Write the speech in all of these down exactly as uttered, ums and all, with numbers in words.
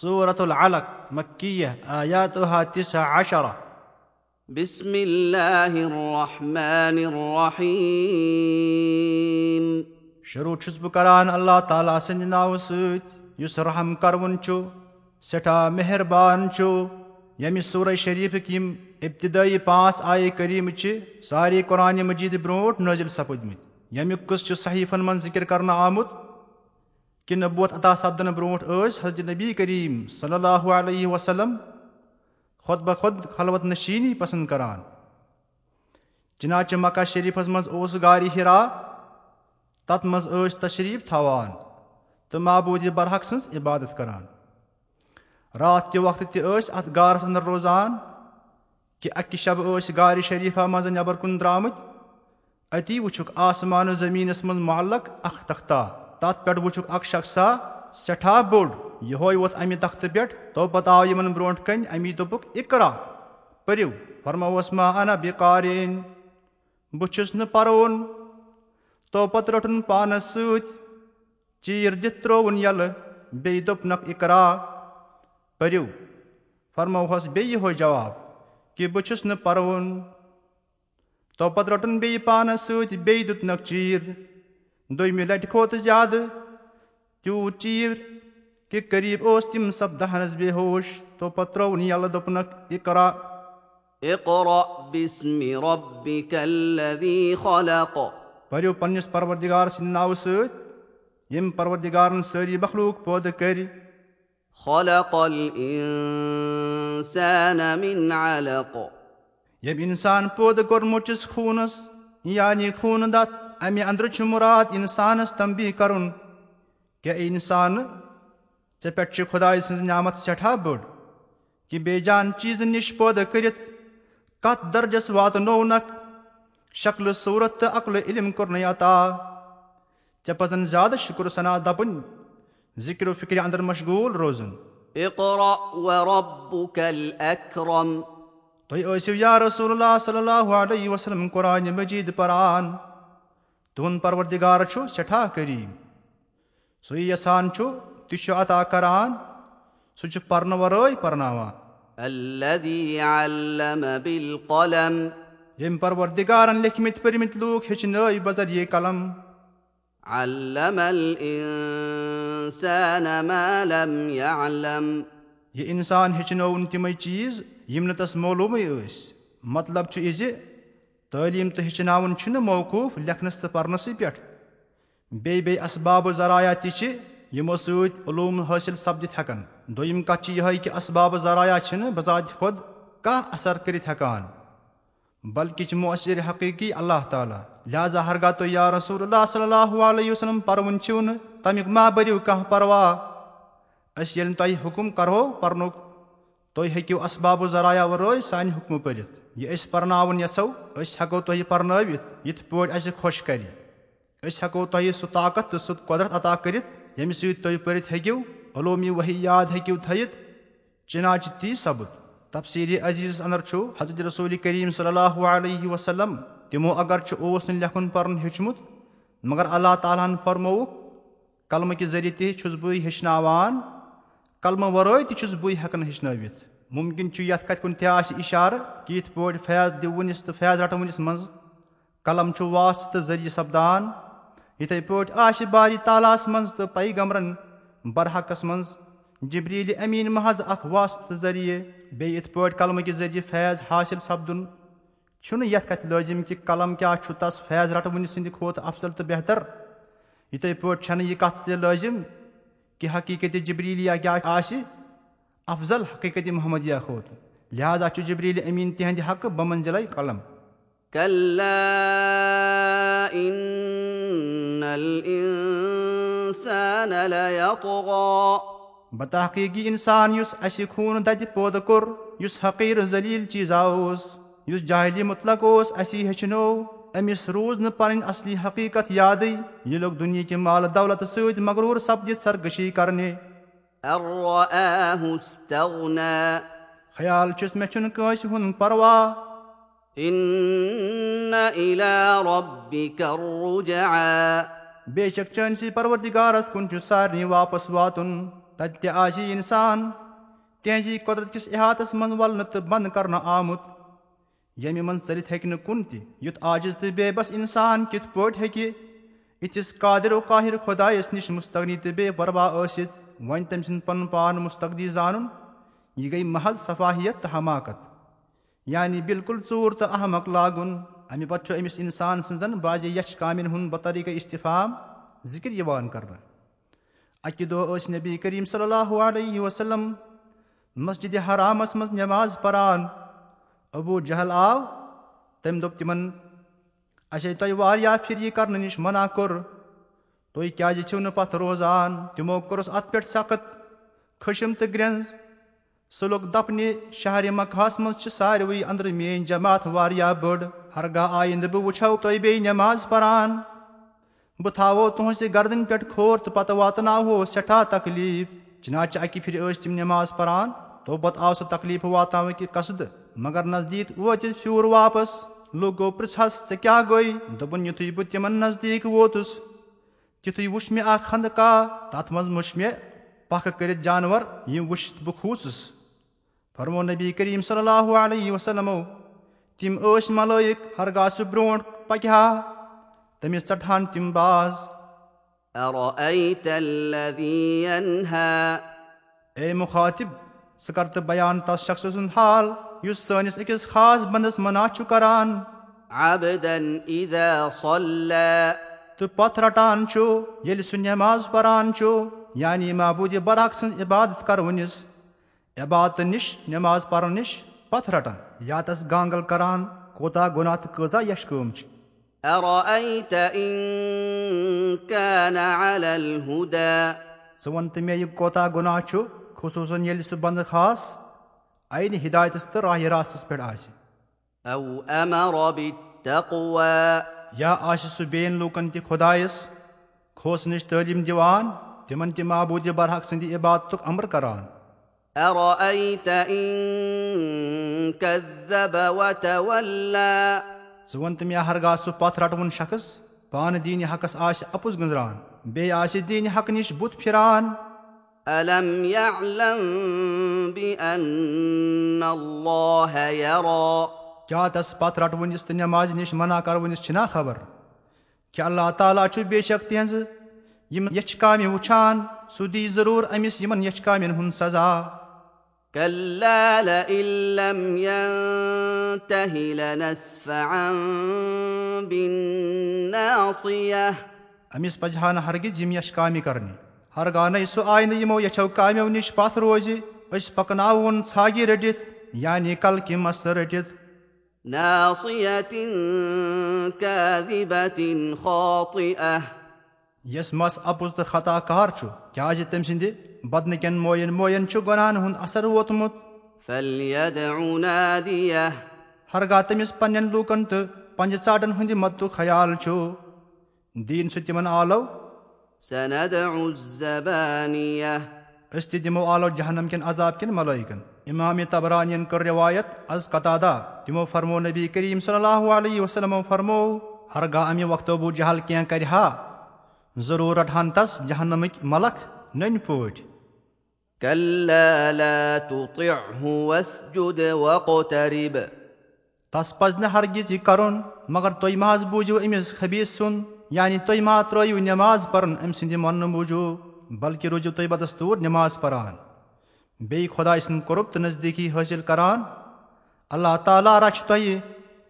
سورة العلق، مکیہ، آیاتها تسع عشرہ۔ بسم الله الرحمن الرحيم۔ شروع چھُس بہٕ کران اللہ تعالیٰ سٕنٛدِ ناوٕ سۭتۍ، یُس رحم کرون چھُ، سٮ۪ٹھاہ مہربان چھُ۔ ییٚمہِ سورہ شریفٕکۍ یِم ابتدٲیی پانٛژھ آیہِ کریمہٕ چھِ سارے قرآن مجید برونٛٹھ نٲزِل سپٕدمٕتۍ، ییٚمیُک قصہٕ چھُ صحیفن منٛز ذکر کرنہٕ آمُت۔ کہ نبوت عطا سپدنہٕ برونٹھ ٲسۍ حضرت نبی کریم صلی اللہ علیہ وسلم خود بخود خلوت نشینی پسند کران۔ چنانچہ مکہ شریفس منز اوس غار حرا، تتھ منز ٲسۍ تشریف تھاوان تہٕ معبود برحق سٕنز عبادت کران۔ راتھ کہِ وقتہٕ تہِ ٲسۍ اتھ غارس اندر روزان۔ کہ اکہِ شبہٕ ٲسۍ غارِ شریفہ منٛزٕ نٮ۪بر کُن درٛامٕتۍ۔ اتی وُچھُکھ آسمان و زمینس منٛز معلق اکھ تختہ۔ تتھ پٮ۪ٹھ وُچھُکھ اکھ شخصا سٮ۪ٹھاہ بوٚڑ۔ یِہوے ووٚتھ امہِ تختہٕ پٮ۪ٹھ۔ تو پتہٕ آو یِمن برونٛٹھ کنہِ۔ امی دوٚپُکھ، "اقرا، پٔرِو۔" فرمووس، "ما انا بقارئ، بہٕ چھُس نہٕ پرون۔" تو پتہٕ روٚٹُن پانس سۭتۍ چیٖر دِتھ ترٛووُن یَلہٕ، بیٚیہِ دوٚپنکھ، "اقرا، پٔرِو۔" فرموہس بیٚیہِ یِہوے جواب کہ، "بہٕ چھُس نہٕ پرون۔" تو پتہٕ روٚٹُن بیٚیہِ پانس سۭتۍ، بیٚیہِ دیُتنکھ چیٖر۔ دوٚیمہِ لٹہِ کھوٚت زیادٕ تیوٗت چیٖر کہ قریب اوس تِم سپدہنس بے ہوش۔ تو پتہٕ ترٛووُن یَلہٕ، دوٚپنکھ، "اقرا۔" اقرأ باسم ربك الذي خلق۔ پٔرِو پننِس پروردگار سٕنٛدِ ناوٕ سۭتۍ، ییٚمۍ پروردگارن سٲری مخلوق پٲدٕ کٔرۍ۔ خلق الإنسان من علق۔ ییٚمۍ انسان پٲدٕ کوٚرمُت چھُس خوٗنس، یعنی خوٗنہٕ دتھ۔ امہِ اندرٕ چھُ مراد انسانس تنبیہ کرُن، کہ اے انسان، ژےٚ پٮ۪ٹھ چھِ خدایہِ سٕنٛز نعمت سٮ۪ٹھاہ بٔڑ، کہ بے جان چیٖزٕ نِش پٲدٕ کٔرِتھ کتھ درجس واتنوونکھ؟ شکلہٕ صوٗرت تہٕ عقلہٕ علم کوٚرنے عطا۔ ژےٚ پزن زیادٕ شُکر ثنا دپٕنۍ، ذکر و فکرِ اندر مشغول روزُن۔ اقرأ وربك الأكرم۔ تُہۍ ٲسِو یا رسول اللہ صلی اللہ علیہ وسلم قرآن مجید پران۔ تُہُنٛد پروردگار چھُ سٮ۪ٹھاہ کریم۔ سُے یژھان چھُ، تہِ چھُ عطا کران۔ سُہ چھُ پرنہٕ ورٲے پرناوان۔ الذي علم بالقلم۔ ییٚمۍ پروردگارن لیکھمٕتۍ پٔرمٕتۍ لوٗکھ ہیٚچھنٲوۍ بذریعہ قلم۔ علم الإنسان ما لم يعلم۔ یہِ انسان ہیٚچھنٲوُن تِمے چیٖز یِم نہٕ تس معلومٕے ٲسۍ۔ مطلب چھُ یہِ زِ تعلیٖم تہٕ ہیٚچھناوُن چھُنہٕ موقوٗف لیکھنس تہٕ پرنسٕے پٮ۪ٹھ۔ بیٚیہِ بیٚیہِ اسباب و ذرایع تہِ چھِ، یِمو سۭتۍ علوم حٲصِل سپدِتھ ہٮ۪کن۔ دوٚیِم کتھ چھِ یِہے کہِ اسباب و ذرایع چھِنہٕ بذات خود کانٛہہ اثر کٔرِتھ ہٮ۪کان، بلکہِ چھِ مؤثر حقیٖقی اللہ تعالیٰ۔ لہذا ہرگاہ تُہۍ یا رسول اللہ صلی اللہ علیہ وسلم پرون چھِو نہٕ، تمیُک مہ بٔرِو کانٛہہ پرواہ۔ أسۍ ییٚلہِ تۄہہِ حُکم کرہو پرنُک، تُہۍ ہیٚکِو اسباب و ذرایع ورٲے سانہِ حُکمہٕ پٔرِتھ۔ یہِ أسۍ پرناوُن یژھو، أسۍ ہٮ۪کو تۄہہِ پرنٲوِتھ یِتھ پٲٹھۍ اسہِ خۄش کرِ۔ أسۍ ہٮ۪کو تۄہہِ سُہ طاقت تہٕ سُہ قۄدرت عطا کٔرِتھ، ییٚمہِ سۭتۍ تُہۍ پٔرِتھ ہیٚکِو، علومی وحی یاد ہیٚکِو تھٲیِتھ۔ چنانچہ تی سپُد۔ تفسیر عزیزس اندر چھُ حضرت رسول کریم صلی اللہ علیہ وسلم، تِمو اگرچہ اوس نہٕ لیکھُن پرُن ہیوٚچھمُت، مگر اللہ تعالیٰ ہن فرمووُکھ، "قلمہٕ کہِ ذٔریعہٕ تہِ چھُس بٕے ہیٚچھناوان، قلمہٕ ورٲے تہِ چھُس بٕے ہٮ۪کان ہیٚچھنٲوِتھ۔" ممکن چھُ یتھ کتھِ کُن تہِ آسہِ اشارٕ کہِ یِتھ پٲٹھۍ فیض دِوٕنِس تہٕ فیض رٹوٕنِس منٛز قلم چھُ واسطہٕ تہٕ ذٔریعہٕ سپدان، یِتھے پٲٹھۍ آسہِ باری تعالیٰ ہس منٛز تہٕ پیغمبرن برحقس منٛز جبریل امین محض اکھ واسطہٕ ذٔریعہٕ۔ بیٚیہِ یِتھ پٲٹھۍ قلمہٕ کہِ ذٔریعہٕ فیض حٲصِل سپدُن چھُنہٕ یتھ کتھِ لٲزِم کہِ قلم کیٛاہ چھُ تس فیض رٹوٕنہِ سٕنٛدِ کھۄتہٕ افضل تہٕ بہتر۔ یِتھے پٲٹھۍ چھنہٕ یہِ کتھ تہِ لٲزِم کہِ حقیقت جبریلیہ کیٛاہ آسہِ افضل حقیقت محمدیہ کھۄتہٕ۔ لہذا چھُ جبریل امین تِہنٛدِ حقہٕ بمنزلے قلم۔ كلا إن الإنسان ليطغى۔ بتحقیق یہِ انسان یُس اسہِ خوٗن دتہِ پٲدٕ کوٚر، یُس حقیر ذلیل چیزا اوس، یُس جاہلی مطلق اوس، اسی ہیٚچھنو، أمِس روٗز نہٕ پنٕنۍ اصلی حقیقت یادٕے۔ یہِ لوٚگ دُنیہکہِ مال دولت سۭتۍ مغروٗر سپدِتھ سرکشی کرنہِ۔ أن رآه استغنى۔ خیال چھُس مےٚ چھُنہٕ کٲنٛسہِ ہُنٛد پرواہ۔ إن إلى ربك الرجعى۔ بے شک چٲنِسٕے پروردگارس کُن چھُ سارنٕے واپس واتُن۔ تتہِ تہِ آسہِ یہِ انسان تِہنٛزی قۄدرت کِس احاطس منٛز ولنہٕ تہٕ بند کرنہٕ آمُت، ییٚمہِ منٛز ژٔلِتھ ہیٚکہِ نہٕ کُن تہِ۔ یُتھ عاجز تہٕ بے بس انسان کِتھ پٲٹھۍ ہیٚکہِ یِتھِس قادر و قاہر خۄدایس نِش مستغنی تہٕ بے پرواہ ٲسِتھ وۄنۍ تٔمۍ سُنٛد پنُن پان مستغنی زانُن؟ یہِ گٔے محض سفاہیت تہٕ حماقت، یعنی بالکل ژوٗر تہٕ احمق لاگُن۔ امہِ پتہٕ چھُ أمِس انسان سٕنٛزن بعضِ یچھ کامٮ۪ن ہُنٛد بطریقہ استفہام ذکر یِوان کرنہٕ۔ اکہِ دۄہ ٲسۍ نبی کریم صلی اللہ علیہ وسلم مسجد حرامس منٛز نماز پران۔ ابو جہل آو، تٔمۍ دوٚپ تِمن، "اسے تۄہہِ واریاہ پھِرِ یہِ کرنہٕ نِش منع کوٚر، تُہۍ کیازِ چھِو نہٕ پتھ روزان؟" تِمو کوٚرُس اتھ پٮ۪ٹھ سخت خشم تہٕ گرٛنٛز۔ سُہ لوٚگ دپنہِ، "شہرِ مکہس منٛز چھِ ساروٕے أنٛدرٕ میٲنۍ جماعت واریاہ بٔڑ۔ ہرگاہ آیندٕ بہٕ وٕچھو تۄہہِ بیٚیہِ نماز پران، بہٕ تھاوو تُہنٛزِ گردنہِ پٮ۪ٹھ کھور تہٕ پتہٕ واتناوہو سٮ۪ٹھاہ تکلیف۔" چنانچہ اکہِ پھرِ ٲسۍ تِم نماز پران، توپتہٕ آو سُہ تکلیف واتناونہٕ کہِ قصدٕ، مگر نزدیک وٲتِتھ پھیوٗر واپس۔ لوٗکو پرژھس، "ژےٚ کیٛاہ گوٚے؟" دوٚپُن، یُتھُے بہٕ تِمن نزدیک ووتُس، تِتھُے وُچھ مےٚ اکھ خندقاہ، تتھ منٛز وُچھ مےٚ پکھ کٔرِتھ جانور، یِم وُچھِتھ بہٕ کھوٗژُس۔ فرمو نبی کریم صلی اللہ علیہ وسلمو، تِم ٲسۍ ملائک، ہرگاہ سُہ برونٛٹھ پکہِ ہا، تٔمِس ژٹہٕ ہن تِم باز۔ أرأيت الذي ينهى؟ اے مخاطب، ژٕ کر تہٕ بیان تس شخص سُنٛد حال یُس سٲنِس أکِس خاص بندس منع چھُ کران۔ عبدا إذا صلى۔ تہٕ پتھ رٹان چھُ ییٚلہِ سُہ نماز پران چھُ، یعنی معبود برحق سٕنٛز عبادت کرونِس۔ عبادت نِش، نماز پرن نِش پتھ رٹن، یا تس گانگل کران، کوتاہ گناہ تہٕ کۭژاہ یش کٲم چھِ۔ أرأيت إن كان على الهدى؟ ژٕ وَن تہٕ مےٚ، یہِ کوتاہ گناہ چھُ، خصوصاً ییٚلہِ سُہ بندٕ خاص عینِ ہدایتس تہٕ راہِ راستس پٮ۪ٹھ آسہِ۔ أو أمر بالتقوى؟ یا آسہِ سُہ بیٚین لوٗکن تہِ خۄدایس کھوژنٕچ تعلیٖم دِوان، تِمن تہِ معبوٗدِ برحق سٕنٛدِ عبادتُک امر کران۔ أرأيت إن كذب وتولى؟ ژٕ وَن تہٕ مےٚ، ہرگاہ سُہ پتھ رٹوُن شخص پانہٕ دیٖنِ حقس آسہِ اپُز گٔنٛزراوان، بیٚیہِ آسہِ دیٖنِ حق نِش بُتھ پھِران۔ ألم يعلم بأن الله يرى؟ کیٛاہ تس پتھ رٹوٕنِس تہٕ نمازِ نِش منع کرٕوٕنِس چھِنا خبر؟ کہِ اللہ تعالیٰ چھُ بے شک تِہنٛزٕ یِم یچھِ کامہِ وُچھان، سُہ دی ضروٗر أمِس یِمن یچھِ کامٮ۪ن ہُنٛد سزا۔ كلا لئن لم ينته لنسفعا بالناصية۔ أمِس پزِ ہا نہٕ ہرگز یِم یچھِ کامہِ کرنہِ۔ ہرگاہ نَے سُہ آیہِ نہٕ یِمو یچھو کامیو نِش پتھ روزِ، أسۍ پکناوون ژھاگہِ رٔٹِتھ، یعنی کلکہِ مستہٕ رٔٹِتھ۔ ناصية كاذبة خاطئة۔ یس مس اپُز تہٕ خطا کار چھُ، کیازِ تٔمۍ سٕنٛدِ بدنہٕ کٮ۪ن موین موین چھُ گۄناہن ہُنٛد اثر ووتمُت۔ فليدع ناديه۔ ہرگاہ تٔمِس پننٮ۪ن لوٗکن تہٕ پنجہِ ژاٹن ہٕنٛدِ مدتُک خیال چھُ، دیٖن سُہ تِمن آلو۔ سندع الزبانية۔ أسۍ تہِ دِمو آلو جہنم کٮ۪ن عذاب کٮ۪ن ملٲیکن۔ امام طبرانین کٔر روایت از قتادہ، تِمو فرمو، نبی کریم صلی اللہ علیہ وسلمو فرمو، ہرگاہ امہِ وقتہٕ ابو جہل کینٛہہ کرِ ہا، ضروٗر رٹہٕ ہن تس جہنمٕکۍ ملک نٔنۍ پٲٹھۍ۔ كلا لا تطعه واسجد واقترب۔ تس پزِ نہٕ ہرگز یہِ کرُن، مگر تُہۍ مہ حظ بوٗزِو أمِس خبیٖث سُنٛد، یعنی تُہۍ مہ ترٲیِو نماز پرُن أمۍ سٕنٛدِ مننہٕ موٗجوٗب، بلکہِ روٗزِو تُہۍ بدستوٗر نماز پران، بیٚیہِ خۄداے سُنٛد قرب تہٕ نزدیٖکی حٲصِل کران۔ اللہ تعالیٰ رچھِ تۄہہِ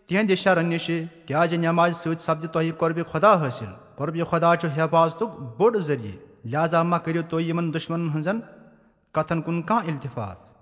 تِہنٛدِ شرن نِشہِ، کیازِ نمازِ سۭتۍ سپدِ تۄہہِ قربِ خۄدا حٲصِل۔ قربِ خۄدا چھُ حفاظتُک بوٚڑ ذٔریعہٕ، لہذا مہ کٔرِو تُہۍ یِمن دُشمنن ہٕنٛزن کتھن کُن کانٛہہ التفات۔